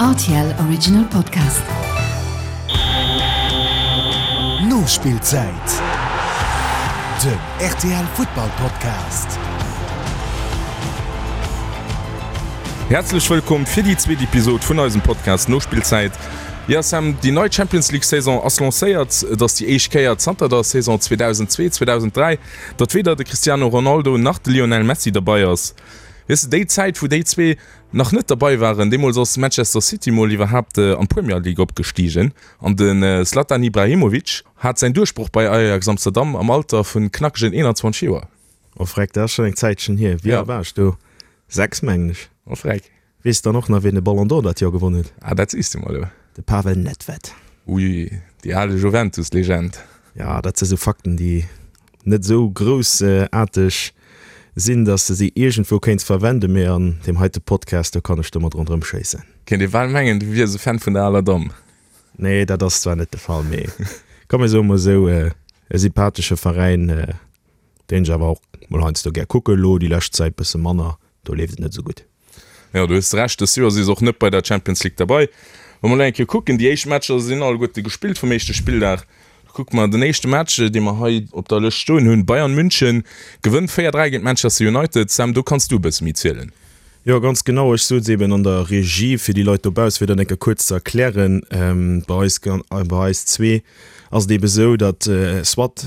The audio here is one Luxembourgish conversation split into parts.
Rtl Original Podcast. Nospillzäit, den rtl Futtball Podcast. Häerzlech wëllkomm fir déi zweet Episod vun eisem Podcast Nospillzäit. Jo Sam, déi nei Champions League Saison ass lancéiert. Et ass déi éischt Kéier zanter der Saison 2002, 2003, datt weder de Cristiano Ronaldo nach de Lionel Messi derbei ass. Weess de, déi Zäit wou déi zwee nach net derbei waren, deemools ass Manchester City mol iwwerhaapt an d'Premier League opgestigen an de Zlatan Ibrahimovic hat säin Duerchbroch bei Ajax Amsterdam am Alter vun knackegen 21 Joer. Oh freck, dat ass schonn eng Zäitchen hier. Wéi al war ech do? 6 mengen ech. Oh freck. Weess dann och nach wien de Ballon d'Or dat Joer gewonnen huet? Ah, dat sees du mer elo. De Pavel Nedved. Ui, déi al Juventus-Legend. Ja, dat si sou Fakten, déi net esou groussaarteg sinn, dass de se iergendwou kéints verwenden, mee an deem heite Podcast, do kann ech domat ronderëm schéissen. Kéint ee bal mengen, du wiers e Fan vun der aler Damm. Nee, dat ass zwar net de Fall, mee komm mir soe mol esou, e sympathesche Veräin, deen ech awer och mol heiansdo gär kucken. Elo déi lescht Zäit bësse manner, do leeft et net esou gutt. Jo, du hues Recht, dëst Joer si se och net bei der Champions League derbei. Wa mer elo eng Kéier kucken, déi éischt Matcher sinn alleguerte gespillt vum éischte Spilldag. Da kucke mer den éischte Match, dee mer hei op der Lëscht stoen hunn, Bayern München gewënnt 4, 3 géint Manchester United. Sam, do kanns du e bësse méi zielen. Jo, ganz genau. Ech sot eben an der Regie, fir déi Leit dobauss fir dat eng Kéier kuerz ze erklären, bei eis, bei eis zwee ass et ebe sou, datt soit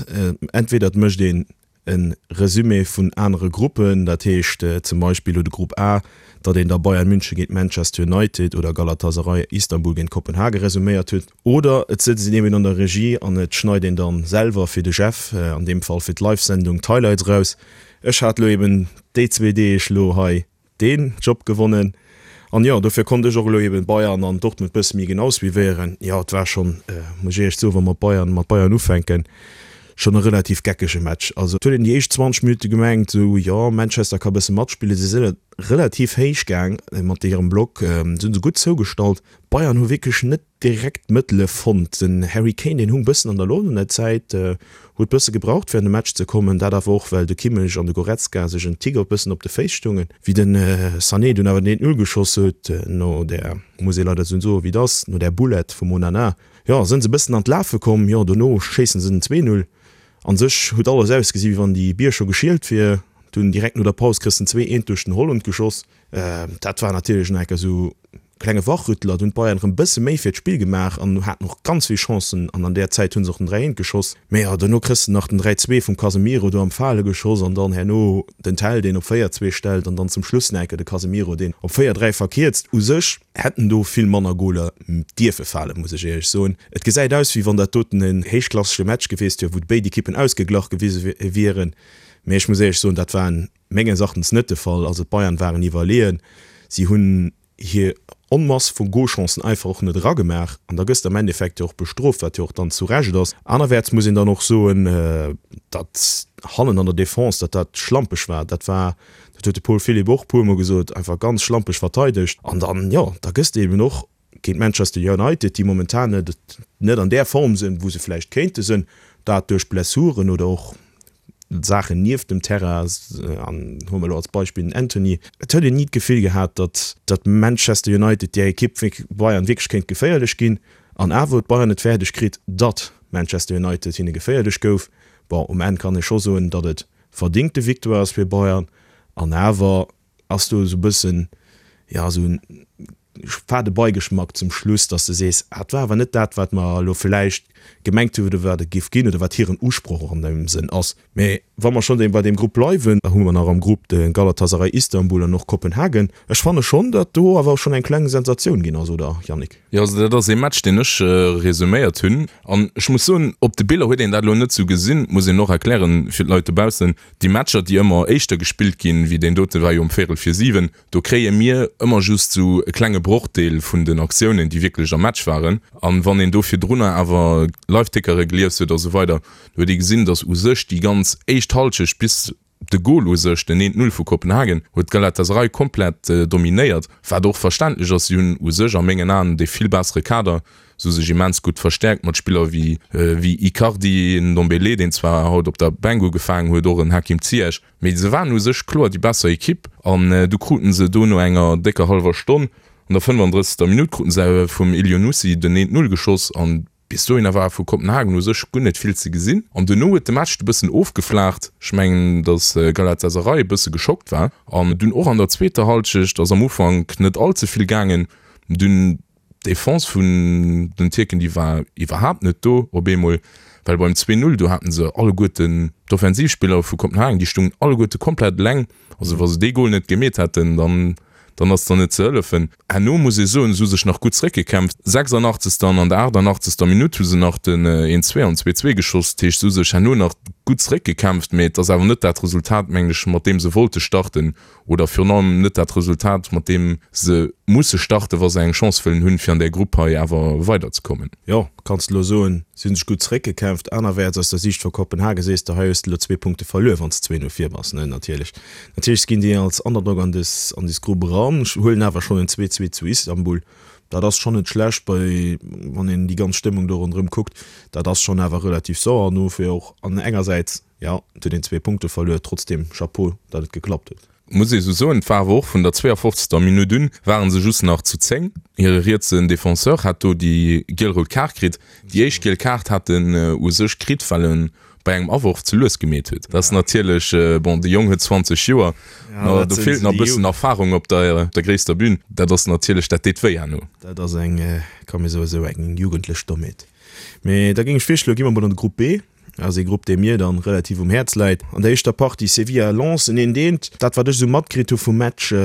entweder et mécht een e Resumé vun anere Gruppen, dat heescht zum Beispill elo de Grupp A, datt een da Bayern München géint Manchester United oder Galatasaray Istanbul géint Kopenhagen resuméiert huet. Oder et sëtzt een eben an der Regie an et schneit een dann selwer fir de Jeff, an deem Fall fir d'Live-Sendung, d'Highlights eraus. Ech hat elo eben déi zwee Deeg elo hei deen Job gewonnen an jo dofir konnt ech och elo eben Bayern an Dortmund bësse méi genau suivéieren. Jo et war schonn, muss ech éierlech soen, wa mer Bayern mat Bayern ufänken, schonn e relativ geckege Match. Also et huet een déi éischt 20 Minutte gemengt esou jo Manchester ka bësse matspillen, si sinn relativ héich gaang mat hirem Block, se hunn se gutt zougestallt. Bayern hu wierklech net direkt d'Mëttele fonnt. Den Harry Kane, deen hung bëssen an der Loft an der Zäit, huet bësse gebraucht fir an de Match ze kommen. Dat awer och well de Kimmich an de Goretzka sech en Tick op bëssen op de Féiss stoungen. Wéi de Sané dunn awer den 1, 0 geschoss huet, no där, muss ee leider esou soen wéi et ass, no där Boulette vum Onana, jo, sënn se bëssen an d'Lafe komm. Jo, dono schéissen se den 2, 0. An sech huet alles ausgesi wéi wann déi Bier scho geschielt wier. Dunn direkt no der Paus kriss den 2, 1 duerch den Holland geschoss. Dat war natierlech nach enker esou klenge Wachrütteler. Do hunn d'Bayern erëm bësse méi fir d'Spill gemaach an haten och ganz vill Chancen an an där Zäit hu se och den 3, 1 geschoss. Mee jo, dono kriss de nach den 3, 2 vum Casemiro do am Fale geschoss an dann herno den Tel, deen op 4, 2 stellt an dann zum Schluss nach enker de Casemiro, deen op 4, 3 verkierzt. U sech hätten do vill manner Goler dierfe falen, muss ech éierlech soen. Et gesäit aus, wéi wann dat doten en héichklassege Match gewiesst wier, wou béid Ekippen ausgeglach gewise wieren. Mee ech muss éierlech soen, dat war en Menges Erachtens net de Fall. Also d'Bayern waren iwwerleeën. Si hunn hir Onmass vu Golchancen einfach och net eragemaach an da gëss de am Endeffekt jo och bestrooft, wat jo och dann zu Recht ass. Anerwäerts muss een dann och soen, datt hannen an der Defense, datt dat schlampeg war. Dat war, dat huet de Paul Philipp och e puermol gesot, einfach ganz schlampeg verteidegt. An dann, jo, da gëss de eben och géint Manchester United, déi momentan net net an där Form sinn, wou se vläicht kéinte sinn, dat duerch Blessuren oder och Saachen nieft dem Terrain, an huele mer elo als Beispill den Antony. Et huet een ni d'Gefill gehat, datt datt Manchester United, där Ekipp, Bayern wierklech kéint geféierlech ginn. An awer huet Bayern et fäerdeg kritt, datt Manchester United hinne geféierlech gouf. Bon, um Enn kann ee scho soen, datt et verdingte Victoire ass fir Bayern, an awer Ass do esou bëssen, jo, esou en fade Beigeschmack zum Schluss, dass de sees, ah, et war awer net dat, wat mer elo vläicht gemengt hunn oder wat et géif ginn oder wat hiren Usproch och an deem Sënn ass. Mä wa mer schonn bei deem Grupp bleiwen, da hu mer nach am Grupp de Galatasaray Istanbul an och Kopenhagen. Ech fanne schonn, datt do awer schonn eng kleng Sensatioun ginn ass, oder, Yannick? Jo, also dat ass ee Match, deen ech resuméiert hunn. An ech muss soen, op de Biller huet een dat elo net esou gesinn, muss een och erklären fir d'Leit dobaussen. Déi Matcher, déi ëmmer éischter gespillt ginn, wéi deen dote war jo um véierel vir 7, do kréie mir ëmmer just esou e klenge Brochdeel vun den Aktiounen, déi wierklech am Match waren. An wann een do virdrunner awer Live-Tickere gelies huet a sou weider, do huet ee gesinn, datt u sech déi ganz éischt Hallschecht bis de Gol u sech, den 1, 0 vu Kopenhagen, huet Galatasaray komplett dominéiert, wat och verständlech ass. Si hunn u sech a mengen Aen dee vill bessere Kader. Se hu sech immens gutt verstäerkt mat Spiller wéi wéi Icardi, Ndombele, deen zwar haut op der Bänk ugefaangen huet, och en Hakim Ziyech, mee se waren u sech kloer déi besser Ekipp an du kruten se do no enger décker hallwer Stonn. An der 35. Minutt kruten se vum Elyounoussi den 1, 0 geschoss an bis dohinner war vu Kopenhagen u sech guer net vill ze gesinn. An duerno huet de Match e bëssen ofgeflaacht. Ech mengen, datt Galatasaray e bësse geschockt war an dunn och an der zweeter Hallschecht ass am Ufank net all ze vill gaangen. Dunn D'Defense vun den Tierken, déi war iwwerhaapt net do op eemol, well beim 2, 0, do haten se alleguerten d'Offensivspiller vu Kopenhagen, déi stungen alleguerte komplett eleng. Also wa se dee Gol net gemeet hätten, dann, dann ass der net ze hëllefen. Herno muss ee soen, se hu sech nach gutt zeréckgekämpft. 86. an an der 88. Minutt hu se nach den 1, 2 an 2, 2 geschoss. Dat heescht, se hu sech herno nach gutt zeréckgekämpft, mee et ass awer net dat Resultat, mengen ech, mat deem se wollte starten. Oder virun allem net dat Resultat, mat deem se musse starten, wa se eng Chance wëllen hunn, fir an där Grupp hei awer weiderzekommen. Jo, kanns de elo soen, si hunn sech gutt zeréckgekämpft. Anerwäerts, aus der Siicht vu Kopenhagen, sees de, hei hues de elo zwee Punkte verluer, wann s de 2, 0 vir bass, ne? Natierlech, natierlech ginn déi als Underdog an dës, an dës Grupp eran, huelen awer schonn en 2, 2 zu Istanbul. Dat ass schonn net schlecht, bei, wann een déi ganz Stëmmung do ronderëm kuckt. Dat ass schonn awer relativ sauer. An dofir och an engersäits Jo, et huet een zwee Punkte verluer, trotzdem Chapeau, datt et geklappt huet. Muss ee sou soen, et war awer och vun der 52. Minutt un, waren se just nach zu 10. Hire rietsen Defenseur hat do déi giel-rout Kaart kritt. Déi éischt giel Kaart hat en u sech kritt, well en bei engem Aworf ze lues gemeet huet. Dat ass natierlech, bon, de Jong huet 20 Joer, do feelt nach e bëssen Erfarung op der gréisster Bün. Dat ass natierlech, dat deet wéi herno. Dat ass eng, kann mir soen, esou eng jugendlech Dommheet. Mee da géing ech virschloen, gi mer mol an de Grupp B. Ass ee Grupp, dee mir dann relativ um Häerz läit. An der éischter Partie Sevilla, Lens en eent eent. Dat wat ech esou matkritt hu vum Match,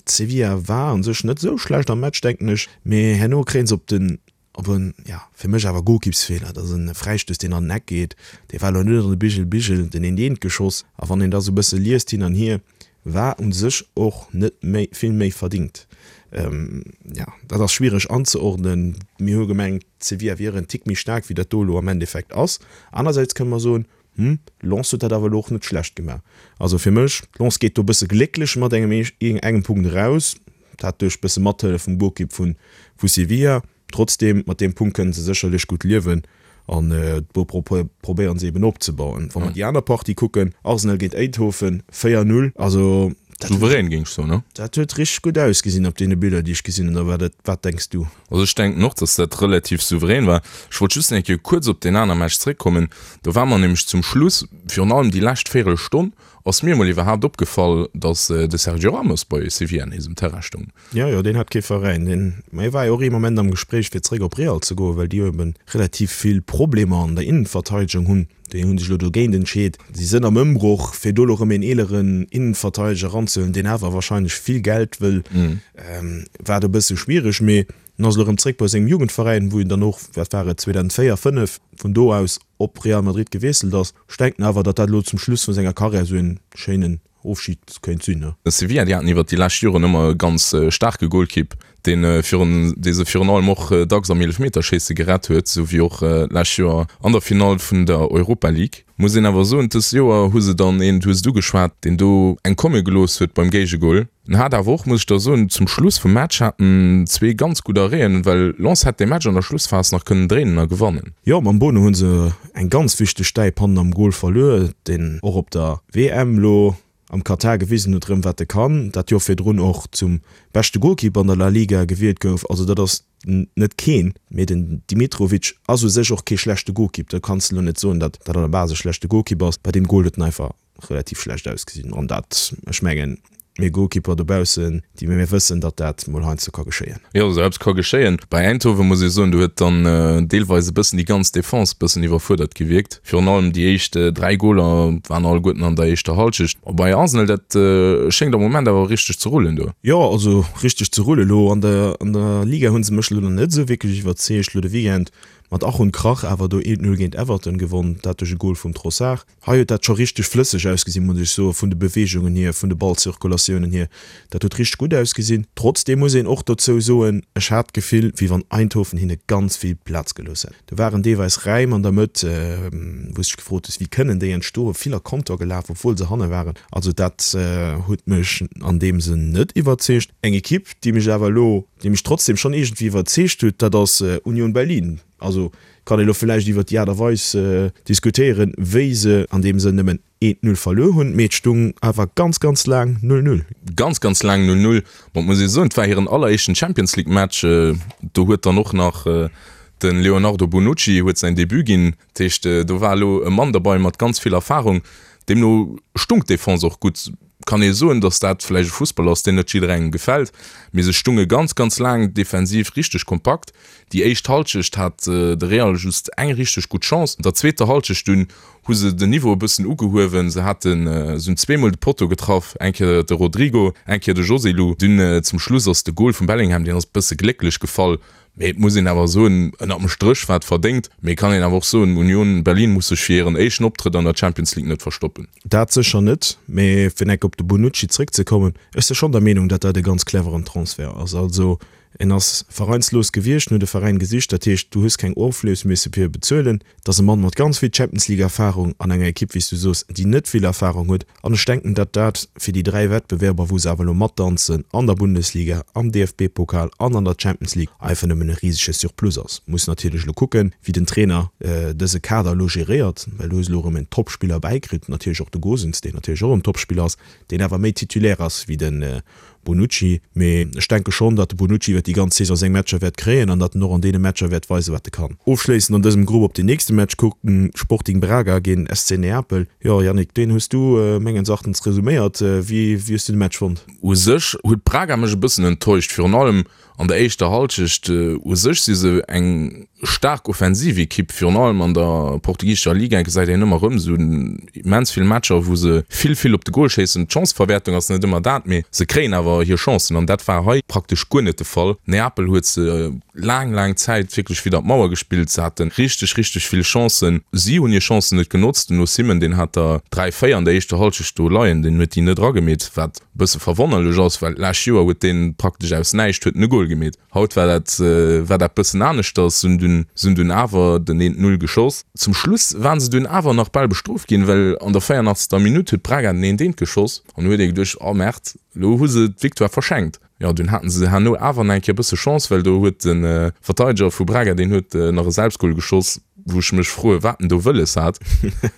Sevilla war an sech net esou schlecht am Match denken ech, mee herno kréien se op den, op en, ja fir mech awer Golkippsfeeler, dat ass en Fräistouss deen an den Eck geet, dee war elo net an de Bigel Bigel, den eent eent geschoss. A wann een da sou bësse liest hin an hier, war un sech och net méi vill méi verdingt. Jo, dat ass schwiereg anzeordnen. Mir hu gemengt, Sevilla wier en Tick méi staark, wéi dat do elo am Endeffekt ass. Anersäits kënne mer soen, Hm, Lens huet dat awer elo och net schlecht gemaach. Also fir mech, Lens geet do e bësse glécklech mat engem engem Punkt eraus, dat duerch bësse Mathëllef vum Golkipp vu Sevilla. Trotzdem, mat deem Punkt kënnen se sécherlech gutt liewen an do probéieren se eben opzebauen. Wa mer déi aner Partie kucken, Arsenal géint Eindhoven, 4, 0, also dat huet, Souverän géing ech soen, ne? dat huet richteg gutt ausgesinn op deene Biller déi ech gesinn hunn. Oder wat, wat denks du? Also ech denken och, dass dat relativ souverän war. Ech wollt just eng Kéier kuerz op deen aner Match zréckkommen. Do war mer nämlech zum Schluss, virun allem déi lescht Véierelstonn, ass mir emol iwwerhaapt opgefall, dass de Sergio Ramos bei Sevilla nees um Terrain stoung. Jo, jo, deen hat kee Veräin. Deen, ma hie war jo och ee Moment am Gespréich fir zeréck op Real ze goen, well déi jo eben relativ vill Problemer an der Innenverteidegung hunn. Déi hu sech elo dogéint entscheet. Si sënn am Ëmbroch, fir do elo erëm een eeleren Innenverteideger eranzehuelen, deen awer wahrscheinlech vill Geld wëll, war do e bësse schwiereg. Mee en ass elo erëm zeréck bei sengem Jugendveräin, wou en dann och, wat war et, 2004, 5 vun do aus op Real Madrid gewiesselt ass. Ech denken awer, datt dat elo zum Schluss vu senger Karriär esou een schéinen Ofschid kéint sinn, ne? Sevilla, déi haten iwwert déi lescht Joren ëmmer e ganz staarke Golkipp, deen virun, dee se virun allem och dacks am Eelefmeterschéisse gerett huet, esou wéi och d'lescht Joer an der Finall vun der Europa League. Muss een awer soen, dëst Joer hu se dann een, du hues et ugeschwat, deen do eng komme gelooss huet beim Géigegol. En hat awer och, muss ech da soen, zum Schluss vum Match hat en zwee ganz gutt Arrêten, well Lens hätt dee Match an der Schlussphas nach kënnen dréinen a gewannen. Jo, mam Bono hu se eng ganz wichteg Stäip hannen am Gol verluer, deen och op der WM lo am Katar gewisen huet rëm wat e kann, dat Joer virdrun och zum beschte Golkipp an der La Liga gewielt gouf. Also dat ass net keen, mee den Dimitrovic ass u sech och kee schlechte Golkipp, do kanns de lo net soen, datt dat an der Base e schlechte Golkipp ass. Bei deem Gol huet en einfach relativ schlecht ausgesinn an dat, ech mengen, mir Goalkeeper dobaussen, déi mir wëssen, datt dat mol heiansdo ka geschéien. Jo, esou eppes ka geschéien. Bei Eindhoven muss ee soen, do huet dann deelweis e bëssen déi ganz Defense e bëssen iwwerfuerdert gewierkt. Virun allem déi éischt 3 Goler waren alleguerten an der éischter Hallschecht. A bei Arsenal, dat schéngt am Moment awer richteg ze rullen do. Jo, also richteg ze rullen. Elo an der an der Liga hu se mech elo nach net esou wierklech iwwerzeegt. Elo de Weekend mat Ach und Krach awer do 1-0 géint Everton gewonn, dat duerch e Gol vum Trossard. Hei huet dat scho richteg flësseg ausgesinn, muss ech soen, vun de Beweegungen hier, vun de Ballzirkulatiounen hier. Dat huet richteg gutt ausgesinn. Trotzdeem muss een och dozou soen, ech hat d'Gefill, wéi wann Eindhoven hinne ganz vill Plaz gelooss hätt. Do waren deelweis Räim an der Mëtt, wou s dech gefrot hues, wéi kënnen déi entstoen? Vill a Konter gelaf, obwuel se hanne waren. Also dat huet mech an deem Sënn net iwwerzeegt. Eng Ekipp, déi mech awer elo, déi mech trotzdeem schonn iergendwéi iwwerzeegt huet, dat ass Union Berlin. Also kann ee lo villäicht iwwert déi Aart a Weis diskutéieren, wéi se an deem Sënn nëmmen. Eent Null verluer hunn, mee et stung awer ganz, ganz laang Null Null. Ganz, ganz laang Null Null. Bon, et muss ee soen, et war hiren alleréischten Champions League Match. Do huet dann och nach de Leonardo Bonucci huet säin Debut ginn. Dat heescht, do war elo e Mann derbei mat ganz vill Erfarung. Deemno stung d'Defense och gutt. Kann ee soen, datt dat vläicht e Fussball ass, deen net jidderengem gefält, mee se stunge ganz, ganz laang defensiv richteg kompakt. Déi éischt Halschecht hat de Real just eng richteg gutt Chance. An der zweeter Halschecht dunn hu se den Niveau e bëssen ugehuewen. Se haten, se hunn zweemol de Potto getraff, eng Kéier de Rodrygo, eng Kéier de Joselu. Dunn zum Schluss ass de Gol vum Bellingham, deen ass e bësse glécklech gefall, mee et muss een awer soen, ënnert dem Stréch war et verdéngt. Mee et kann een awer och soen, Union Berlin muss sech fir hiren éischten Optrëtt an der Champions League net verstoppen. Dat sécher net, mee fir enk op de Bonucci zréckzekommen, ech si schonn der Meenung, datt dat e ganz cleveren Transfert ass. Also En ass veräinslos gewiescht, en huet e Veräin gesicht, dat heescht, du hues keng Oflös misse fir e bezuelen. Et ass e Mann mat ganz vill Champions League Erfarung an enger Ekipp, wéi s du soos, déi net vill Erfarung huet. An ech denken, datt dat fir déi 3 Wettbewerber, wou se awer elo matdanzen, an der Bundesliga, am DFB-Pokal an an der Champions League, einfach nëmmen e risege Surplus ass. Muss natierlech elo kucken, wéi den Trainer dëse Kader elo geréiert, well du hues elo erëm en Topspiller bäikritt, natierlech och de Gosens, deen natierlech och en Topspiller ass, deen awer méi Titulaire ass wéi de Bonucci, mee ech denke schonn, datt de Bonucci iwwer déi ganz Saison seng Matcher wäert kréien an datt en och an deene Matcher wäert weisen, wat e kann. Ofschléissend an dësem Grupp op den nächste Match kucken, Sporting Braga géint SC Neapel. Jo Yannick, deen hues du mengens Erachtens resuméiert. Wéi hues du de Match fonnt? U sech huet Braga mech e bëssen enttäuscht, virun allem An der éischter Halschecht u sech si se eng staark offensiv Ekipp, virun allem an der portugisescher Liga gesäit een ëmmer erëm esou immens vill Matcher, wou se vill, vill op de Gol schéissen. D'Chanceverwäertung ass net ëmmer dat, mee se kréien awer hir Chancen an dat war hei praktesch guer net de Fall. Neapel huet se laang, laang Zäit wierklech widder d'Mauer gespillt. Se hate richteg, richteg vill Chancen. Si hunn hir Chancen net genotzt. Den Osimhen, deen hat der 3, 4 an der éischter Halschecht do leien, deen huet déi net eragemeet, wat Bësse verwonnerlech ass, well d'lescht Joer huet deen praktesch aus näischt huet en e Goal gemeet. Haut war dat war dat bëssen aneschters, se hunn dunn se hunn dunn awer den eent Null geschoss. Zum Schluss waren se dunn awer nach bal bestrooft ginn, well an der 84. Minutt huet Braga den eent eent geschoss an du huet ee geduecht, oh Merd, elo hu se d'Victoire verschenkt. Jo, dunn haten se herno awer nach eng Kéier bësse Chance, well do huet de Verteideger vu Braga, deen huet nach e Selbstgol geschoss, wou ech mech froe wat en do wëlles hat,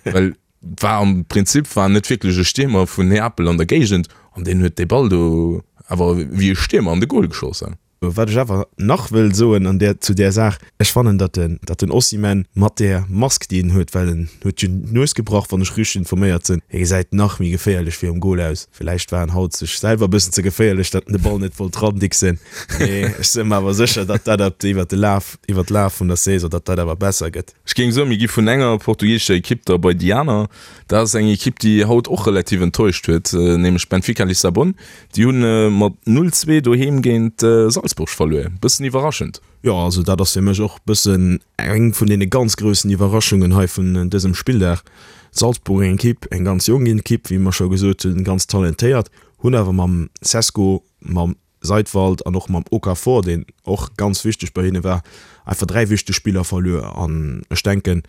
well War am Prinzip war net wierklech e Stiermer vun Neapel an der Géigend an deen huet dee Ball do awer wéi e Stiermer an de Goal geschoss. Wat ech awer nach wëll soen an där, zu där Saach, ech fannen, datt den, datt den Osimhen mat där Mask, déi en huet, well en huet jo d'Nues gebrach, wann ech richteg informéiert sinn, hie gesäit nach méi geféierlech virum Goal aus. Villäicht war en haut sech selwer e bëssen ze geféierlech, datt en de Ball net wollt randixen, mee ech sinn mer awer sécher, datt dat ab, iwwert de Laf, iwwert d'Laf vun der Saison, datt dat awer besser gëtt. Ech géing soen, mir gi vun enger portugiesescher Ekipp da bei déi aner. Dat ass eng Ekipp, déi haut och relativ enttäuscht huet, nämlech Benfica Lissabon. Déi hunn mat 0, 2 doheem géint Salzburg verluer. Bëssen iwwerraschend. Jo, also dat ass fir mech och bëssen eng vun deene ganz groussen Iwwerraschungen hei vun dësem Spilldag. Salzburg, eng Ekipp, eng ganz jonk Ekipp, wéi mer scho gesot hunn, ganz talentéiert, hunn awer mam Sesko, mam Seidwald an och mam Okafor, deen och ganz wichteg bei hinne war, einfach 3 wichteg Spiller verluer. An ech denken,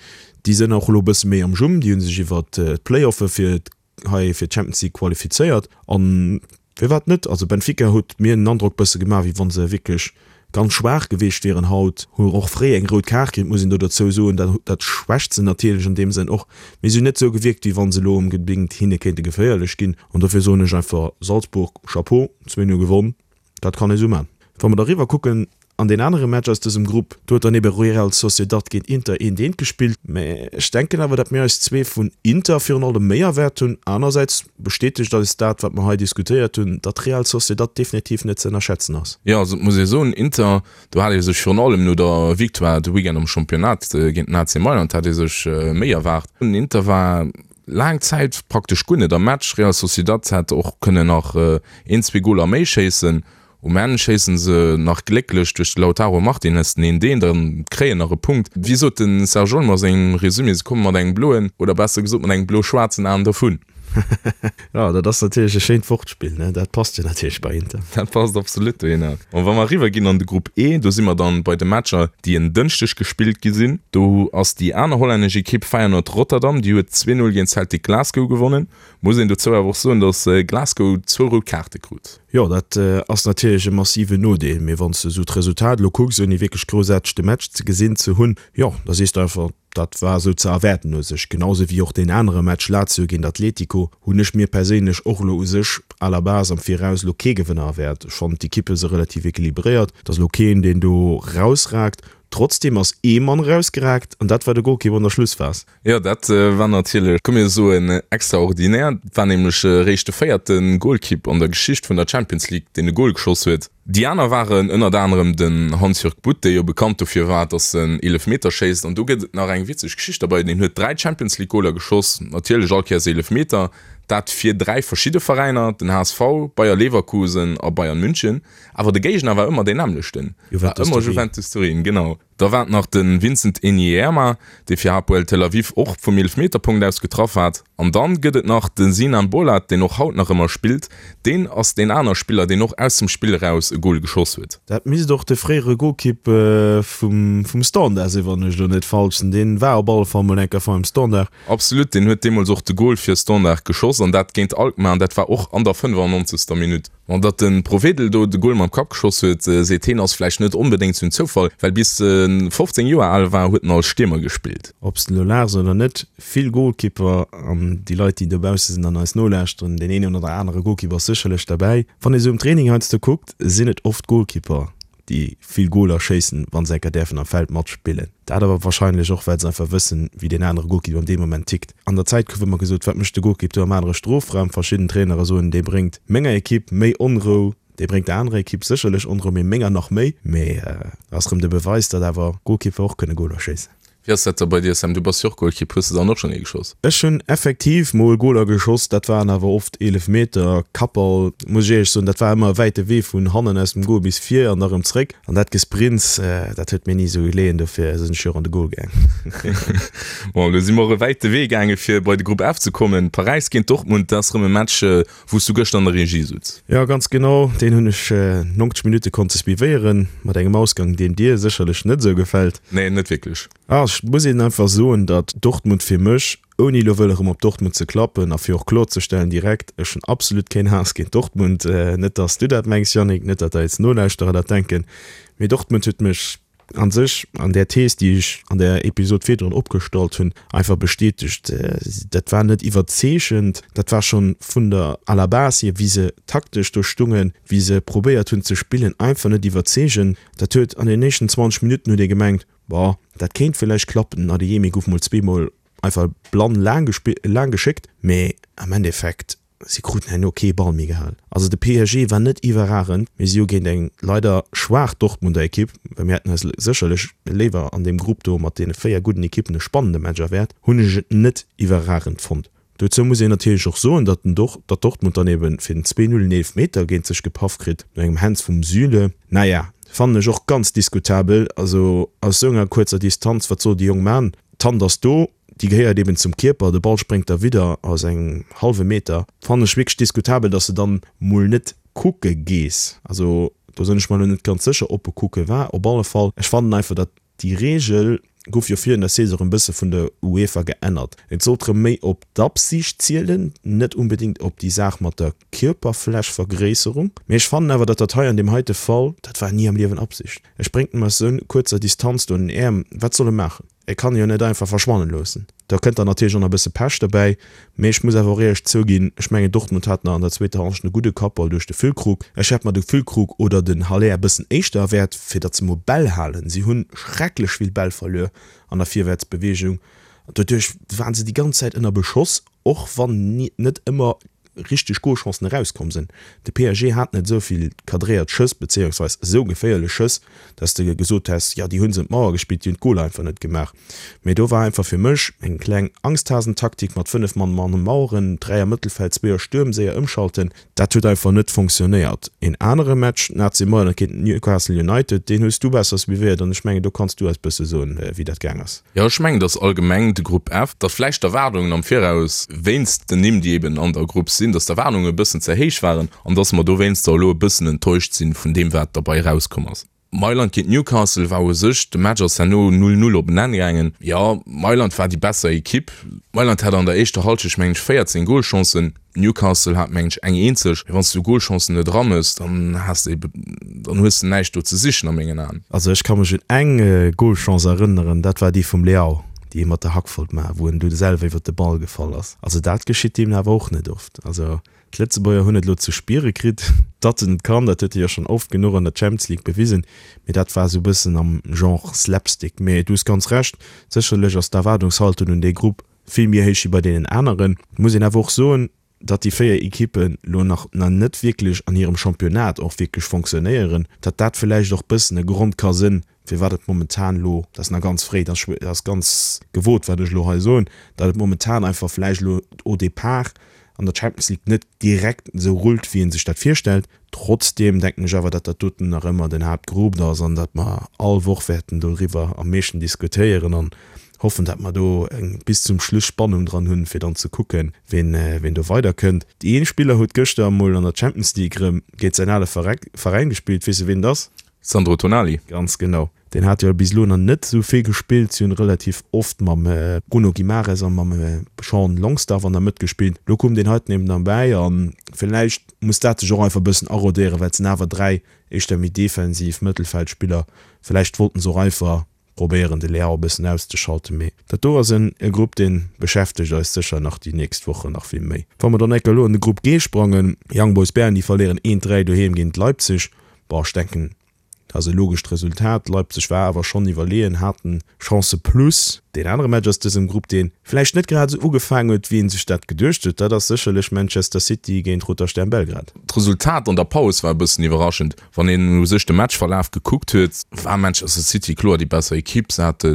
déi sënn och elo e bësse méi am Jumm. Déi hu sech iwwert d'Play-offe fir hei fir d'Champions League qualifizéiert. An firwat net? Also Benfica huet mir den Androck bësse gemaach, wéi wa se wierklech ganz schwaach gewiescht wieren haut. Hu och fréi eng rout Kaart kritt, muss een do dozou soen. Dat dat schwächt se natierlech an deem Sënn och. Mee si hunn net esou gewierkt, wéi wa se elo onbedéngt hinne kéinte geféierlech ginn. An dofir soen ech einfach Salzburg, Chapeau! 2, 0 gewonn, dat kann ee sou man. Wa mer da riwwer kucken an deen anere Match aus dësem Grupp, do huet dann ebe Real Sociedad géint Inter eent eent gespillt. Mä ech denken awer, datt mir eis zwee vun Inter virun allem méi erwaart hunn. Anersäits bestätegt eis dat, wat mer hei diskutéiert hunn, datt Real Sociedad definitiv net ze ënnerschätzen ass. Jo, also et muss ee soen, Inter, do hat ee sech virun allem no der Victoire de Weekend am Championnat géint den AC Mailand hat ee sech méi erwaart. Inter war Laang Zäit praktesch guer net am Match. Real Sociedad hätt och kënnen nach een, zwee Goler méi schéissen. Um Enn schéissen se nach glécklech duerch de Lautaro Martinez den een deen an kréien nach e Punkt. Wéi sot de Serge Olmo a sengem Resumé, se komme mat engem bloen, oder besser gesot mat engem blo-schwaarzen Aen dervun. Jo, dat ass natierlech e schéint Wortspill, ne? Dat passt jo natierlech bei Inter. Dat passt absolut dohinner. An wa mer eriwwer ginn an de Grupp E, do si mer dann bei de Matcher, déi en Dënschdeg gespillt gi sinn. Do ass déi aner hollännesch Ekipp Feyenoord Rotterdam, déi huet 2, 0 géint Celtic Glasgow gewonnen. Muss een dozou awer och soen, datt Glasgow zwou rout Kaarte krut. Jo, dat ass natierlech e massiven Nodeel, mee wann s de esou d'Resultat elo kucks, ouni wierklech groussaarteg de Match ze gesinn ze hunn, jo, da sees de einfach, Dat war esou ze erwäerten u sech. Genau esou wéi och deen anere Match Lazio géint Atletico hunn ech mir perséinlech och elo u sech à la base am Viraus elo kee Gewënner erwäert. Ech fannen d'Ekippe se relativ equilibréiert. Et ass elo keen deen do rausragt. Trotzdeem ass ee Mann erausgeraakt an dat war de Golkipp an der Schlussphas. Jo, dat war natierlech, komm mir soen, extraordinär. Et war nämlech eréischt de véierte Golkipp an der Geschicht vun der Champions League, deen e Gol geschoss huet. Déi aner waren ënnert anerem den Hans-Jörg Butt, dee jo bekannt dofir war, datt en Eelefmeter schéisst. An do gëtt et nach eng witzeg Geschicht derbei, Deen huet 3 Champions League Goler geschoss, natierlech all Kéiers Eelefmeter, dat fir 3 verschidde Veräiner, den HSV, Bayer Leverkusen a Bayern München. Awer de Géigner war ëmmer deen nämmlechten, war ëmmer Juventus Turin, genau. Da war et nach de Vincent Enyeama, dee fir Hapoel Tel Aviv och vum Eelefmeterpunkt aus getraff hat. An dann gëtt et nach de Sinan Bolat, deen och haut nach ëmmer spillt. Deen ass deen aner Spiller, deen och aus dem Spill eraus e Gol geschoss huet. Dat misst och de fréiere Golkipp vum Standard sinn, wann ech elo net falsch sinn. Deen war op alle Fall mol eng Kéier beim Standard. Absolut, deen huet deemools och de Gol fir Standard geschoss an dat géint Alkmaar an dat war och an der 95. Minutt. An datt de Provedel do de Gol mam Kapp geschoss huet, seet heen, ass vläicht net onbedéngt sou en Zoufall, well bis e 15 Joer al war, huet en als Stiermer gespillt. Ob s de elo laachs oder net, vill Golkipper an déi Leit, déi dobausse sinn an eis nolauschteren, deen een oder anere Golkipper ass sécherlech derbäi. Wann ee sou um Training heiansdo kuckt, sinn et oft Golkipper, déi vill Goler schéissen, wa se enker däerfen am Feld matspillen. Dat awer wahrscheinlech och, well se einfach wëssen, wéi deen anere Golkipp an deem Moment tickt. An der Zäit gouf ëmmer gesot, wat mécht de Golkipp do am anere Strofraum? Verschidden Trainere soen, dee bréngt menger Ekipp méi Onrou, dee bréngt der anerer Ekipp sécherlech Onrou, mee menger nach méi. Mee ass erëm de Beweis, datt awer Golkipper och kënne Goler schéissen. Wéi ass dat da bei dir, Sam? Du bass jo och Golkipp, hues de dann och schonn ee geschoss? Ech hunn effektiv mol Goler geschoss, dat waren awer oft Eelefmeter, Kappball, muss ech éierlech soen. Dat war ëmmer e wäite Wee vun hannen aus dem Gol bis vir an da rëm zréck. An dat Gesprints, dat huet mir ni esou geleeën, dofir sinn ech jo och an de Gol gaang. Bon, elo si mer och e wäite Wee gaange fir bei de Grupp F ze kommen. Paräis géint Dortmund, dat ass rëm e Match, wou s du gëschter an der Regie sutz. Jo, ganz genau, deen hunn ech 90 Minutte konnte suivéieren, mat engem Ausgang, deen dir sécherlech net esou gefält. Nee, net wierklech. Ah, ech muss een einfach soen, datt Dortmund fir mech, ouni elo wëll erëm op Dortmund ze klappen a fir och kloerzestellen direkt, ech hunn absolut keen Haass géint Dortmund, net datt s du dat mengs, Yannick, net datt eis Nolauschterer dat denken, mee Dortmund huet mech an sech an där Thees, déi ech an der Episod virdrun opgestallt hunn, einfach bestätegt. Dat war net iwwerzeegend, dat war schonn vun der à la base hier, wéi se taktesch do stungen, wéi se probéiert hunn ze spillen, einfach net iwwerzeegend. Dat huet an den éischten 20 Minutten huet ee gemengt, Bon, dat kéint villäicht klappen. Den Adeyemi gouf mol zweemol einfach blann laang geschéckt, mee am Endeffekt, Si kruten herno kee Ball méi gehal. Also de PSG war net iwwerragend, mee si hu géint eng leider schwaach Dortmunder Ekipp, well mir hätten eis sécherlech léiwer an deem Grupp do mat deene 4 gudden Ekippen e spannende Match erwäert, hunn ech et net iwwerragend fonnt. Dozou muss een natierlech och soen, datt den datt Dortmund dann ebe fir den 2, 0 en Eelefmeter géint sech gepaff kritt no engem Hands vum Süle. Naja, fannen ech och ganz diskutabel. Also aus esou enger kuerzer Distanz, wat soll de Jong man? D'Hand ass do. Déi gehéiert eben zum Kierper, de Ball spréngt da widder aus engem hallwe Meter. Fannen ech wierklech diskutabel, dass de dann mol net kucke gees. Also do sënn ech mer lo net ganz sécher ob e kucke war. Op alle Fall, ech fannen einfach dat déi Reegel gouf jo virun der Saison erëm bësse vun der UEFA geännert. Et sollt rëm méi op d'Absicht zielen, net unbedingt op déi Saach mat der Kierperflächvergréisserung. Mee ech fannen awer, datt dat hei an deem heite Fall, dat war ni am Liewen Absicht. E spréngt em aus esou kuerzer Distanz do an den Äerm, wat soll e maachen? E kann e jo net einfach verschwannen loossen. Da kënnt dann natierlech och nach e bësse Pech derbäi. Mee ech muss awer och éierlech zouginn, ech mengen Dortmund hat nach an der zweeter Hallschent e gudde Kappball duerch de Füllkrug. Ech hätt mer de Füllkrug oder den Haller e bëssen éischter erwäert, fir datt se mol Bäll halen. Si hunn schrecklech vill Bäll verluer an der Virwäertsbeweegung. Doduerch waren se déi ganz Zäit ënner Beschoss, och wann net ëmmer richteg Golchancen erauskomm sinn. De PSG hat net esou vill cadréiert Schëss, bezéiungsweis esou geféierlech Schëss, dass de gesot häss, jo déi hu se un d'Mauer gespillt, déi hunn d'Goler einfach net gemaach. Mee do war einfach fir mech eng kleng Angsthasentaktik mat 5 Mann an de Maueren, 3 am Mëttelfeld, zwee a Stuerm, séier ëmschalten. Dat huet einfach net fonctionnéiert. Een anere Match, den AC Mailand géint Newcastle United, deen hues du besser suivéiert an ech mengen do kanns du eis bësse soen, wéi dat gaang ass. Jo, ech mengen, dass allgemeng de Grupp F, dass vläicht d'Erwaardungen am Viraus, wéinst den Nimm, déi eben an der Grupp sinn, dass d'Erwaardungen e bëssen ze héich waren an dass mer dowéinster elo e bëssen enttäuscht sinn vun deem, wat derbei erauskomm ass. Mailand géint Newcastle war u sech, de Match ass herno 0, 0 op en Enn gaangen. Jo, Mailand war déi besser Ekipp. Mailand hat an der éischter Hallschecht mengen ech 14 Golchancen, Newcastle hat mengen ech eng eenzeg. Mee wann s du Golchancen net eramëss, dann has de ebe, dann hues de näischt do ze sichen a mengen Aen. Also ech ka mech un eng Golchance erënneren, dat war déi vum Leao. déi hie mat der Hack wollt maachen, wou en du selwer iwwert de Ball gefall ass. Also dat geschitt deem awer och net oft. Also d'Lëtzebuerger hunn et elo ze spiere kritt, datt en et kann. Dat huet e jo schonn oft genuch an der Champions League bewisen, mee dat war esou e bëssen am Genre Slapstick. Mee du hues ganz Recht, sécherlech ass d'Erwaardungshaltung un dee Grupp vill méi héich wéi bei deenen aneren. Muss een awer och soen, datt déi 4 Ekippen lo nach nach net wierklech an hirem Championnat och wierklech fonctionnéieren, datt dat villäicht och bëssen e Grond ka sënn, firwat et momentan lo, dat ass nach ganz fréi, dat ass ganz gewot wat ech lo hei soen, datt et momentan einfach villäicht lo au départ an der Champions League net direkt esou rullt, wéi ee sech dat virstellt. Trotzdeem denken ech awer, datt dat doten nach ëmmer den Haaptgrupp ass an datt mer all Woch wäerten doriwwer am meeschten diskutéieren an hoffen, datt mer do eng bis zum Schluss Spannung dran hunn, fir dann ze kucken, ween ween do weiderkënnt. Ee Spiller huet gëschter emol an der Champions League erëm géint säin ale Veräin gespillt. Weess de ween et ass? Sandro Tonali. Ganz genau. Deen hat jo bis elo nach net esou vill gespillt. Si hunn relativ oft mam Bruno Guimares a mam Sean Longstaff an der Mëtt gespillt. Elo koum deen heiten eben derbäi a villäicht muss dat sech och einfach e bëssen arodéieren, well et sinn awer 3 éischter méi defensiv Mëttelfeldspiller. Villäicht wollten se och einfach probéieren de Leao e bëssen auszeschalten. Mee dat do ass en Grupp, dee beschäftegt eis sécher nach déi nächst Wochen nach vill méi. Wa mer dann enker elo an de Grupp G sprangen, Young Boys Bern, déi verléieren 1, 3 doheem géint Leipzig. Bon, ech denken, dat ass e logescht Resultat. Leipzig war awer schonn iwwerleeën, haten Chancë plus. Deen anere Match aus dësem Grupp, dee vläicht net grad esou ugefaangen huet, wéi ee sech dat geduecht huet, dat ass sécherlech Manchester City géint Roter Stern Belgrad. D'Resultat an der Paus war e bëssen iwwerraschend. Wann een u sech de Matchverlaf gekuckt huet, war Manchester City kloer déi besser Ekipp. Se hate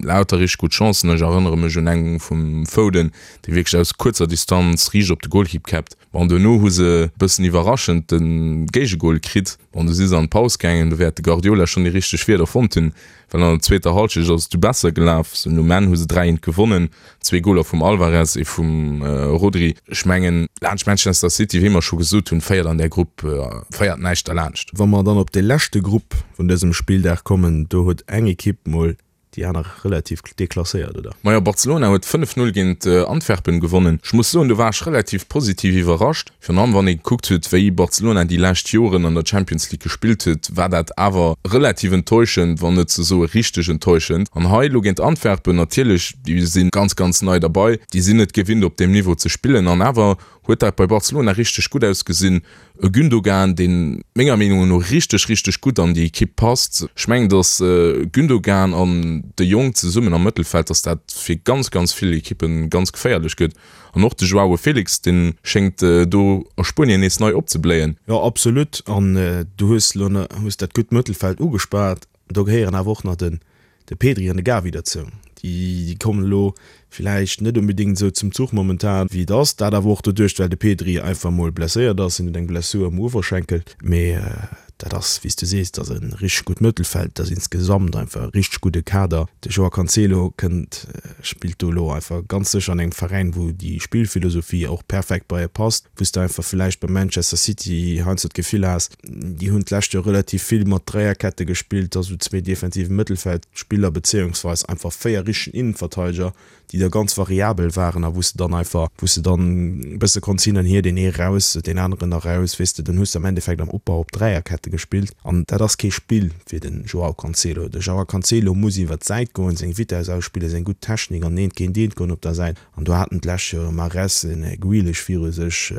lauter richteg gutt Chancen. Ech erënnere mech un eng vum Foden, dee wierklech aus kuerzer Distanz riicht op de Golkipp käppt. Bon, duerno hu se e bëssen iwwerraschend de Géigegol kritt. Bon, du si se an d'Paus gaangen, do wäert de Guardiola schonn déi richteg Wierder fonnt hunn, well an der zweeter Hallschecht ass et du besser gelaf. Sou um Enn hu se 3, 1 gewonnen, zwee Goler vum Alvarez, ee vum Rodri. Ech mengen, laanscht Manchester City, wéi mer scho gesot hunn, féiert an där Grupp féiert näischt derlaanscht. Wa mer dann op de leschte Grupp vun dësem Spilldag kommen, do huet eng Ekipp mol Déi aner relativ deklasséiert, oder? Majo, Barcelona huet 5, 0 géint Antwerpen gewonnen. Ech muss soen, do war ech relativ positiv iwwerrascht. Virun allem wann ee gekuckt huet, wéi Barcelona déi lescht Joren an der Champions League gespillt huet, war dat awer relativ enttäuschend, wann net ze soe richteg enttäuschend. An hei elo géint Antwerpen, natierlech, déi si ganz, ganz nei derbei, déi sinn net gewinnt op deem Niveau ze spillen an awer huet dat bei Barcelona richteg gutt ausgesinn. E Gündogan, deen menger Meenung no richteg, richteg gutt an déi Ekipp passt. Ech mengen, datt Gündogan an de Jong zesummen am Mëttelfeld, datt dat fir ganz, ganz vill Ekippe ganz geféierlech gëtt. An och de Joao Felix, dee schéngt do a Spuenien nees nei opzebléien. Jo, absolut. An du hues elo hues dat gutt Mëttelfeld ugespaart. Do gehéieren awer och nach den de Pedri an de Gavi derzou. Déi kommen elo villäicht net onbedéngt esou zum Zuch momentan wéi et ass. Dat awer och doduerch, well de Pedri einfach mol blesséiert ass. Hien huet eng Blessur um Uewerschenkel. Mee dat ass, wéi s du sees, dat ass e richteg gutt Mëttelfeld. Dat ass insgesamt einfach e richteg gudde Kader. De Joao Cancelo kënnt, spillt do elo einfach ganz sécher an engem Veräin, wou déi Spillphilosophie och perfekt bei e passt. Wou s de einfach villäicht bei Manchester City heiansdo d'Gefill has, Déi hunn d'lescht Joer relativ vill mat Dräierkette gespillt, also zwee defensive Mëttelfeldspiller bezéiungsweis einfach 4 richtegen Innenverteideger, déi da ganz variabel waren a wou s de dann einfach, wou s de dann e bësse konns hin an hier, deen ee raus, deen aneren eraus, weess de, dann hues de am Endeffekt am Opbau op Dräierkette gespillt an dat ass kee Spill fir de Joao Cancelo. De Joao Cancelo muss iwwer d'Säit goen, seng Vitess ausspillen, seng gutt Technik an eent géint eent goen op der Säit an do haten d'lescht Joer e Mahrez, en Grealish viru sech,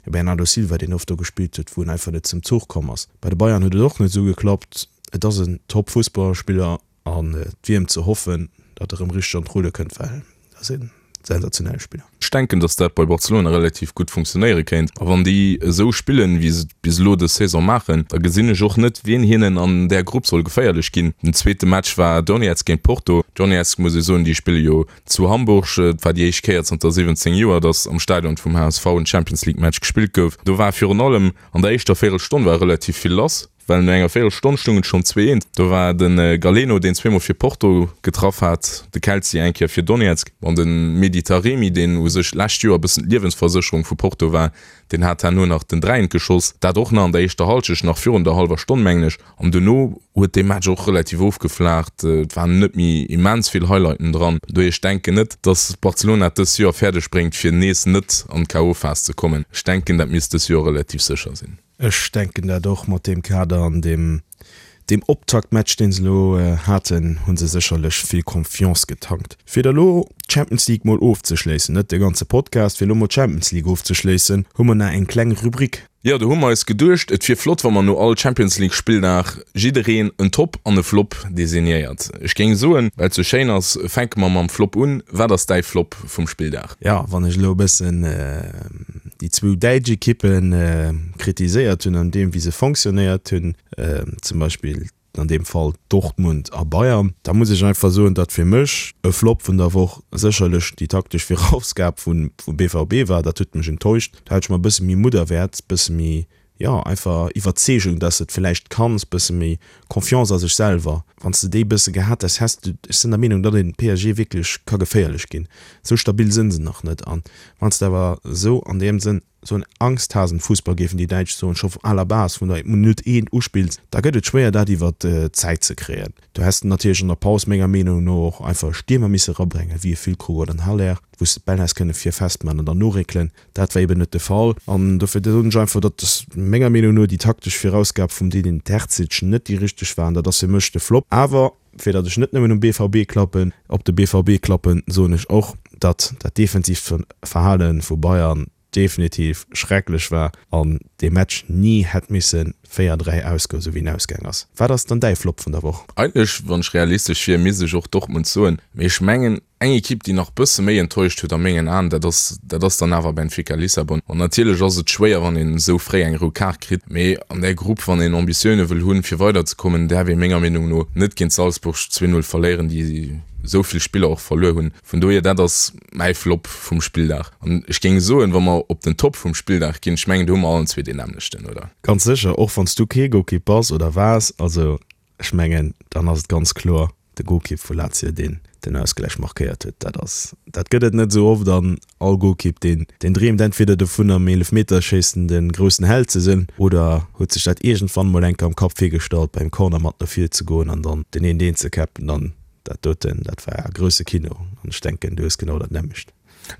E Bernardo Silva, deen oft do gespillt huet, wou en einfach net zum Zuch komm ass. Bei de Bayern huet et och net esou geklappt. Et ass en Top-Fussballspiller an et wier em ze hoffen, datt e rëm richteg an d'Rulle kënnt, well et ass e sensationelle Spiller. Ech denken, datt dat bei Barcelona relativ gutt funktionéiere kéint. A wann déi esou spillen, wéi se et bis elo dës Saison maachen, da gesinn ech och net, wien hinnen an där Grupp soll geféierlech ginn. Den zweete Match war Donetsk géint Porto. Donetsk, muss ee soen, déi spille jo Zu Hamburg, et war déi éischt Kéier zanter 17 Joer, datt am Stadion vum HSV en Champions League Match gespillt gouf. Do war virun allem an der éischter Véierelstonn war relativ vill lass, well no enger Véierelstonn stoung et schonn 2, 1. Do war de Galeno, deen zweemol fir Porto getraff hat, de Kelzi eng Kéier fir Donetsk an de Mehdi Taremi, deen u sech d'lescht Joer e bëssen d'Liewensversécherung vu Porto war, deen hat herno nach den 3, 1 geschoss. Dat och nach an der éischter Hallschecht, nach virun der hallwer Stonn mengen ech. An duerno huet dee Match och relativ ofgeflaacht. Et waren net méi immens vill Highlighten dran. Dohier, ech denken net, dass Barcelona et dës Joer fäerdeg bréngt, fir nees net an d'KO-Phas ze kommen. Ech denken, dat misst dës Joer relativ sécher sinn. Ech denken dat och mat deem Kader an deem. Deem Optaktmatch, deen se elo haten, hu se sécherlech vill Confiance getankt. Fir da lo d'Champions League mol ofzeschléissen, net de ganze Podcast, fir elo mol d'Champions League ofzeschléissen, hu mer nach eng kleng Rubrik. Jo, do hu mer eis geduecht, et wier flott, wa mer no all Champions League Spilldag jiddereen en Top an e Flop designéiert. Ech géing soen, well et sou schéin ass, fänke mer mam Flop un. Wat ass däi Flop vum Spilldag? Jo, wann ech elo e bëssen déi zwou däitsch Ekippe kritiséiert hunn an deem, wéi se fonctionnéiert hunn, zum Beispill an deem Fall Dortmund a Bayern, da muss ech einfach soen, datt fir mech e Flop vun der Woch sécherlech déi taktesch Virausgab vum BVB war. Dat huet mech enttäuscht. Do hat ech mer e bësse méi Mutt erwäert, e bësse méi, jo, einfach Iwwerzeegung, datt s de et vläicht kanns, e bësse méi Confiance a sech selwer. Wann s de déi e bësse gehat häss, häss de, ech sinn der Meenung, datt een PSG wierklech ka geféierlech ginn. Esou stabil sinn se nach net. An wann s de awer esou an deem Sënn Sou en Angsthasen-Fussball, géifen déi Däitsch soen, scho à la base vun der Minutt eent uspills, da gëtt et schwéier dat iwwer d'Zäit ze kréien. Do häss de natierlech an der Paus menger Meenung no och einfach e Stiermer misse rabréngen, wéi e Füllkrug oder en Haller, wou s de d'Bäll häss kënne vir festman an dann noréckelen. Dat war eben net de Fall. An dofir soen ech einfach, datt menger Meenung no déi taktesch Virausgab vum Edin Terzic net déi richteg war an dat ass fir mech de Flop. Awer fir datt ech net nëmmen um BVB klappen, op de BVB klappen, soen ech och, datt dat defensiivt Verhale vu Bayern definitiv schrecklech war an dee Match ni hätt misse 4, 3 ausgoen, sou wéi en ausgaang ass. Wat ass dann däi Flop vun der Woch? Eigentlech, wann ech realistesch wier, misst ech och Dortmund soen, mee ech mengen, eng Ekipp, déi nach bësse méi enttäuscht huet a mengen Aen, dat ass, dat ass dann awer Benfica Lissabon. An natierlech ass et schwéier, wann een esou fréi eng rout Kaart kritt, mee an där Grupp, wann een Ambitioune wëll hunn, fir weiderzekommen, däerf ee menger Meenung no net géint Salzburg 2, 0 verléieren, déi esou vill Spiller och verluer hunn. Vun dohier, dat ass mäi Flop vum Spilldag. An ech géing soen, wa mer op den Top vum Spilldag ginn, ech mengen, do hu mer allen zwee deen nämmlechten, oder? Ganz sécher, och wann s du kee Golkipp bass oder waars. Also ech mengen, dann ass et ganz kloer de Golkipp vu Lazio, deen den Ausgläich markéiert huet. Dat ass, dat gëtt et net esou oft an all Golkipp, deen, deen dreemt entweder dovun am Eelefmeterschéissen de groussen Held ze sinn oder huet sech dat iergendwann mol eng Kéier am Kapp virgestallt, beim Corner mat no vir ze goen an dann den een deen ze käppen. An Dat doten, dat war grousse Kino an ech denken, du hues genau dat nämmlecht.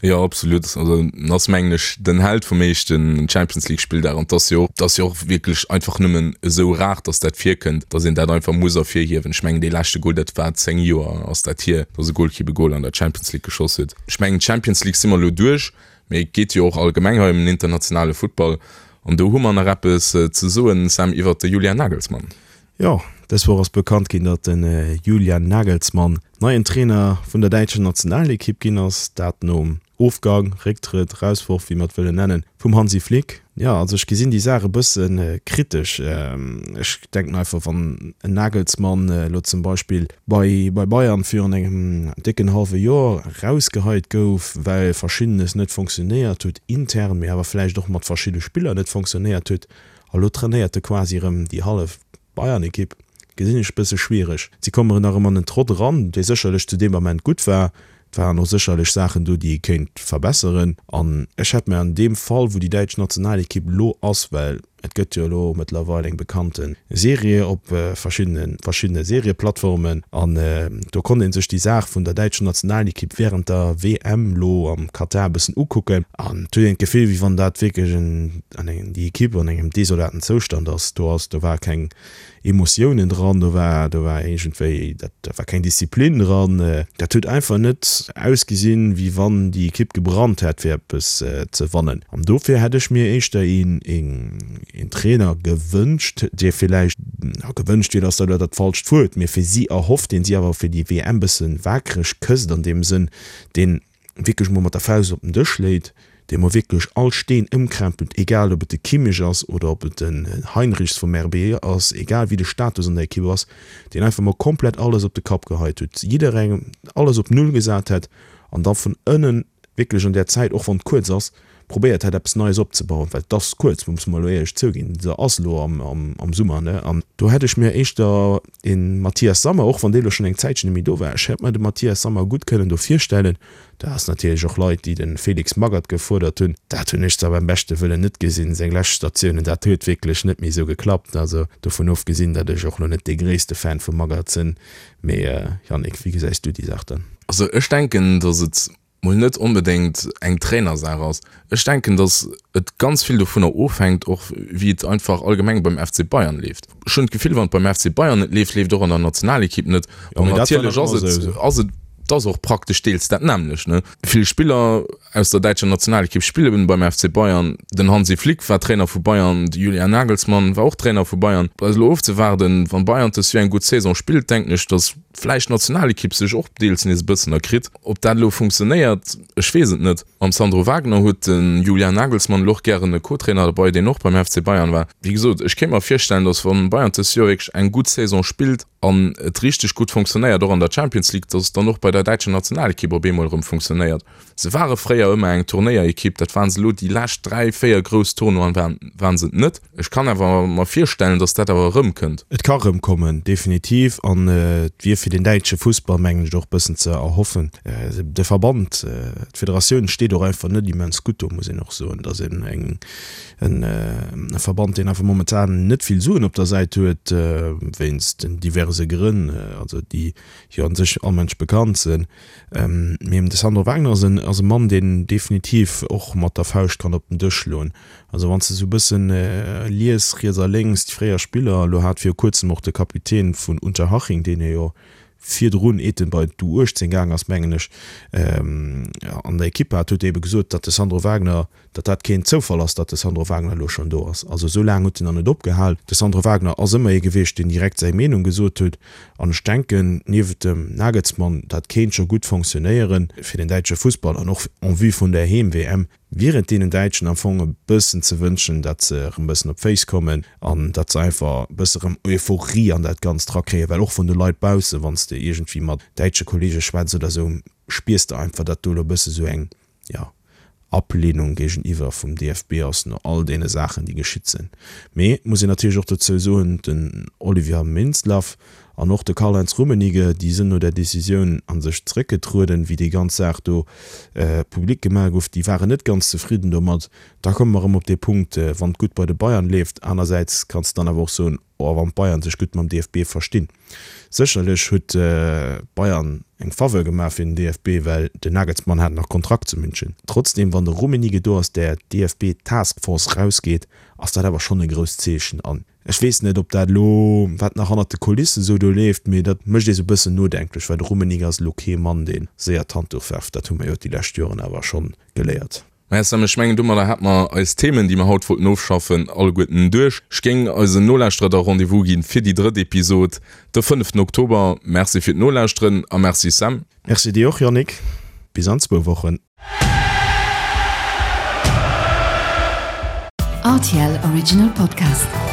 Jo, absolut. Also en ass, mengen ech, den Held vum éischten Champions League Spilldag an 't ass jo och, 't ass jo och wierklech einfach nëmmen esou rar, dass dat virkënnt, dass een dat einfach muss ervirhiewen. Ech mengen, dee leschte Goal, dat war 10 Joer ass dat hier, dass e Golkipp e Goal an der Champions League geschoss huet. Ech mengen, d'Champions League si mer elo duerch, mee et geet jo och allgemeng hei ëm den internationale Futtball an do hu mer nach eppes ze soen, Sam, iwwert de Julian Nagelsmann. Jo, dës Woch ass bekannt ginn, datt de Julian Nagelsmann neien Trainer vun der däitscher Nationalekipp ginn ass. Dat nom Ofgang, Récktrëtt, Rausworf, wéi mer et wëllen nennen, vum Hansi Flick. Jo, also ech gesinn déi Saach e bësse kritesch. Ech denken einfach, wann en Nagelsmann elo zum Beispill bei bei Bayern virun engem décken hallwe Joer erausgeheit gouf, well Verschiddenes net fonctionnéiert huet intern, mee awer vläicht och mat verschidde Spiller net fonctionnéiert huet, A lo trainéiert e quasi erëm déi hallef Bayern-Ekipp. Gesinn ech bësse schwiereg. Si kommen nach ëm an en Trott eran, dee sécherlech zu deem Ament gutt war. Et waren och sécherlech Saachen do, déi ee kéint verbesseren. An ech hätt mir an deem Fall, wou déi däitsch Nationalekipp elo ass, well et gëtt jo elo mëttlerweil eng bekannte Serie op verschiddene verschiddene Serieplattformen, an do konnt ee sech déi Saach vun der däitscher Nationalekipp wärend der WM elo am Katar e bëssen ukucken. An et huet een d'Gefill, wéi wann dat wierklech en an engem déi Equipe an engem desolaten Zoustand ass, do ass, do war keng Emotiounen dran, do war, do war iergendwéi, dat, do war keng Disziplin dran, dat huet einfach net ausgesinn, wéi wann déi Equipe gebrannt hätt fir eppes ze wannen. An dofir hätt ech mir éischter een, een, een Trainer gewënscht, dee villäicht, gewënscht wier, ass da elo dat falscht Wuert, mee fir si erhofft, deen si awer fir déi WM bësse wakereg kësst an deem Sënn, deen wierklech mol mat der Faust op den Dësch léit, dee mol wierklech all Steen ëmkrempelt, egal ob et de Kimmich ass oder ob et den Heinrichs vum RB ass, egal wéi de Status an der Ekipp ass, deen einfach mol komplett alles op de Kapp geheit huet, jidderengem alles op Null gesat hätt an da vun ënnen wierklech an där Zäit, och wann et kuerz ass, probéiert hätt eppes Neies opzebauen, well et ass kuerz, musse mer elo éierlech zouginn, se ass elo am Summer, ne, an do hätt ech mir éischter e Matthias Sammer, och wann dee elo schonn eng Zäitchen net méi do war, ech hätt mer de Matthias Sammer gutt kënnen do virstellen. Do ass natierlech och Leit, déi de Felix Magath gefuerdert hunn, dat hunn ech zwar beim beschte Wëllen net gesinn, seng lescht Statiounen, dat huet wierklech net méi esou geklappt, also dovun ofgesinn, datt ech och elo net dee gréisste Fan vum Magath sinn, mee Yannick, wéi gesäis du déi Saach dann? Also ech denken, datt et. mol net onbedéngt eng Trainersaach ass. Ech denken, datt et ganz vill dovunner ofhänkt och wéi et einfach allgemeng beim FC Bayern leeft. Ech hunn d'Gefill, wann et beim FC Bayern net leeft, leeft et och an der Nationalekipp net. An natierlech ass et, ass et, et ass och praktesch deels dat nämmlecht, ne? Vill Spiller aus der däitscher Nationalekipp spille beim FC Bayern. Den Hansi Flick war Trainer vu Bayern, de Julian Nagelsmann war och Trainer vu Bayern. Bleift elo ofzewaarden. Wann Bayern dës Joer eng gutt Saison spillt, denken ech, datt vläicht d'Nationalekipp sech och deels nees e bëssen erkritt. Ob dat elo funktionéiert, ech weess et net. Mam Sandro Wagner huet de Julian Nagelsmann elo och gären e Co-Trainer derbei, deen och beim FC Bayern war. Wéi gesot, ech kéint mer virstellen, datt wann Bayern dës Joer wierklech eng gutt Saison spillt an et richteg gutt funktionéiert, och an der Champions League, datt et dann och bei der däitscher Nationalekipp op eemol erëm funktionéiert. Se ware fréier ëmmer eng Turnéierekipp, dat waren se elo déi lescht 3, 4 grouss Tournoien waren waren se et net. Ech kann awer mer virstellen, datt dat awer erëmkënnt. Et ka erëmkommen, definitiv. An et wier fir den däitsche Fussball, mengen ech, och e bëssen ze erhoffen. De Verband, d'Federatioun steet och einfach net immens gutt do, muss een och soen. Et ass en e Verband, deen einfach momentan net vill Suen op der Säit huet, wéinst den diverse Grënn, also déi jo an sech all Mënsch bekannt sinn. Mee de Sandro Wagner ass en ass e Mann, deen definitiv och mat der Fauscht kann op den Dësch schloen. Also wann s de sou e bëssen lies, riets a lénks, déi fréier Spiller, elo hat viru kuerzem och de Kapitän vun Unterhaching, deen jo virdrun, eet en bei d'U18 gaang ass, mengen ech, an der Ekipp hat, huet ebe gesot, datt de Sandro Wagner, datt dat keen Zoufall ass, datt de Sandro Wagner elo schonn do ass. Also esou laang huet en nach net opgehal. De Sandro Wagner ass ëmmer ee gewiescht, deen direkt säi Meenung gesot huet. An ech denken, niewent dem Nagelsmann, dat kéint scho gutt fonctionnéieren fir den däitsche Fussball an och en vue vun der Heem-WM wier et deenen Däitschen am Fong e bëssen ze wënschen, datt se erëm e bëssen op d'Féiss kommen an datt se einfach e bësse rëm Euphorie an dat Ganzt rakréien, well och vun de Leit baussen, wann s de iergendwéi mat däitsche Kollege schwätz oder esou, spiers de einfach, datt do elo e bësse sou eng, jo, Ablehnung géigeniwwer vum DFB ass, no all deene Saachen, déi geschitt sinn. Mee et muss een natierlech och dozou soen, den Oliver Mintzlaff an och de Karl-Heinz Rummenigge, déi sënn no där Decisioun a sech zeréckgetrueden, wéi déi ganz Saach do public gemaach gouf, déi waren net ganz zefridden domat. Da komme mer erëm op dee Punkt, wann et gutt bei de Bayern leeft. Anersäits kanns de dann awer och soen, oh, wann d'Bayern sech gutt mam DFB verstinn. Sécherlech huet d'Bayern eng Faveur gemaach fir den DFB, well den Nagelsmann hat nach Kontrakt zu München. Trotzdeem, wann de Rummenigge do aus där DFB-Taskforce rausgeet, ass dat awer schonn e grousst Zeechen. An ech weess net, ob dat elo, wat nach hannert de Kulissen esou do leeft, mee dat mécht ee sou e bëssen nodenklech, well de Rummenigge ass elo kee Mann, dee séier d'Handduch werft. Dat hu mer jo déi lescht Joren awer schonn geléiert. Maja Sam, ech mengen domadder hat mer eis Themen, déi mer haut wollten ofschaffen, alleguerten duerch. Ech géing eisen Nolauschterer da Rendez-vous ginn fir déi drëtt Episod de fënneften Oktober. Merci fir d'Nolauschteren a merci Sam. Merci dir och Yannick. Bis an zwou Wochen. Rtl Original Podcast.